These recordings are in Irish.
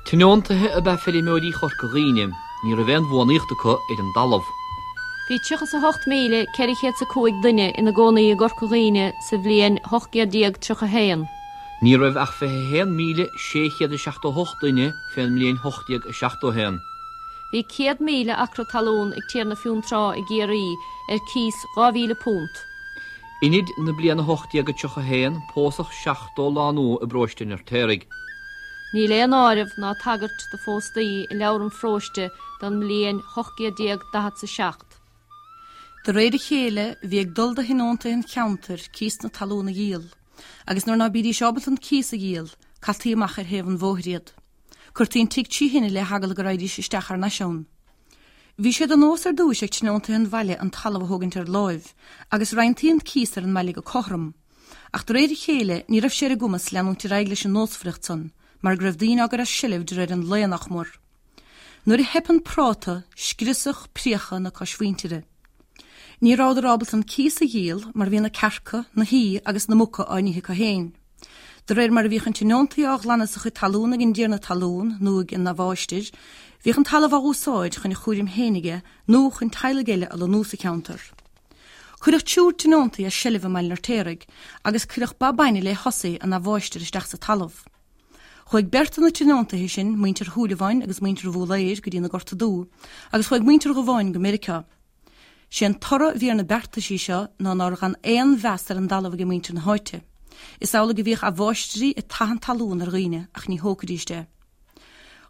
Tionóntaithe ab ea feirmeoirí Chorca Dhuibhne. Ní raibh aon bhuanaíocht acu ar an dtalamh. Bhí 38,405 duine ina gcónaí i gCorca Dhuibhne sa bhliain 1831. Ní raibh ach 21,678 duine fén mbliain 1871. Bhí 100,000 acra talún ag Tiarna Fionntrá i gCiarraí ar cíos £2,000. Inid na bliana 1831 pósadh 70 lánúin i bparóiste an Fheirtéaraigh. Níl aon áireamh ná tagairt do phóstaí i leabhar an pharóiste don mbliain 1847. De réir a chéile, bhí ag dul do thionóntaithe an cheantair cíos na talún a dhíol, agus nuair ná bídís ábalta an cíos a dhíol, caití amach ar thaobh an bhóthair iad. Cuirtí an tigh trí thine le heagla go raghaidís isteach thar n-ais ann. Bhí sé de nós ar dtúis ag tionóntaithe an bhaile an talamh a thógaint ar láimh, agus roinntaí an cíos ar an mbaile go cothrom. Ach de réir a chéile, ní raibh sé ar a gcumas leanúint ar aghaidh leis an nósmhaireacht san, mar go raibh daoine á gcur as seilbh de réir an lae, nach mór. Nuair a theip an práta, scriosadh, priocadh na coismhuintire. Ní rabhadar ábalta an cíos a dhíol mar bhí na cearca, na haoi agus na muca á n-ithe acu féin. De réir mar a bhíodh an tionóntaí á ghlanadh as a chuid talún ag an dtiarna talún nó ag an amháistir, bhíodh an talamh á úsáid chun a chúraim féin aige nó chun teaghlaigh eile a lonnú sa cheantar. Cuireadh triúr tionóntaí as seilbh i mBaile an Fheirtéaraigh agus cuireadh ba bainne lé hussy an amháistir isteach sa talamh. Chuaigh beirt de na tionóntaithe sin, muintir Shúilleabháin agus muintir Bhúlaeir, go dtí na Gorta Dubha agus chuaigh muintir Dhubháin go Meiriceá. Sé an toradh a bhí ar na beartaisí seo ná nár dh'fhan aon mheas ar an dtalamh age muintir na háite. Is amhlaidh a bhíodh amháistrí ag tathant talún ar dhaoine ach ní thógfaidíst é.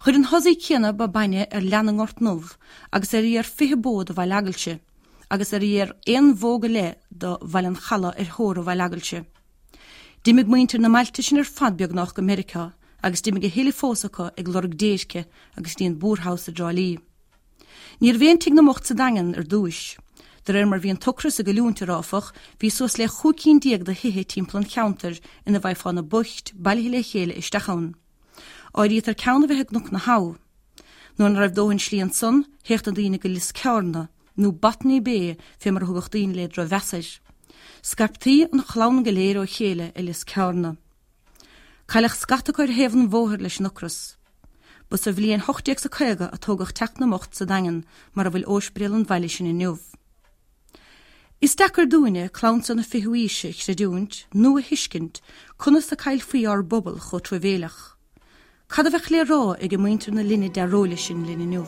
Chuir an hussy céanna ba bainne ar leath na nGort nDubh agus ar fhiar 20 bó do Bhaile Eagailse agus ar fhiar aon bhó go leith do Bhaile an Chalaidh ar theora Bhaile Eagailse. D'imigh muintir na mbailte sin ar fad beagnách go Meiriceá agus d'imigh a thuilleadh fós acu ag lorg déirce agus dtí an Boor House i dTrá Lí. Ní raibh aon Tigh na mBocht sa Daingean ar dtúis. De réir mar bhí an t-ocras ag goilliúint air áfach, bhí suas le 15 cinn de thithe timpeall an cheantair ina bhfaighfeá na boicht bailithe le chéile isteach ann. Áirítear ceann a bheith i gCnoc na hAbha. Nuair ná raibh dóthain slí ansan, théadh na daoine go Lios Cearna, nó Botany Bay fé mar a thugadh daoine le drochmheas air. Scaiptí an chlann go léir ó chéile i Lios Cearna. Cailleadh scata acu ar thaobh an bhóthair leis an ocras. Ba sa bhliain 1850 a tógadh Teach na mBocht sa Daingean mar a bhfuil óispidéal an bhaile sin inniu. Is deacair dúinne, clann seo na fichiú aoise, a chreidiúint nó a thuiscint conas a caillfí ár bpobal chomh truamhéileach. Cad a bheadh le rá age muintir na linne dearóile sin linn inniu?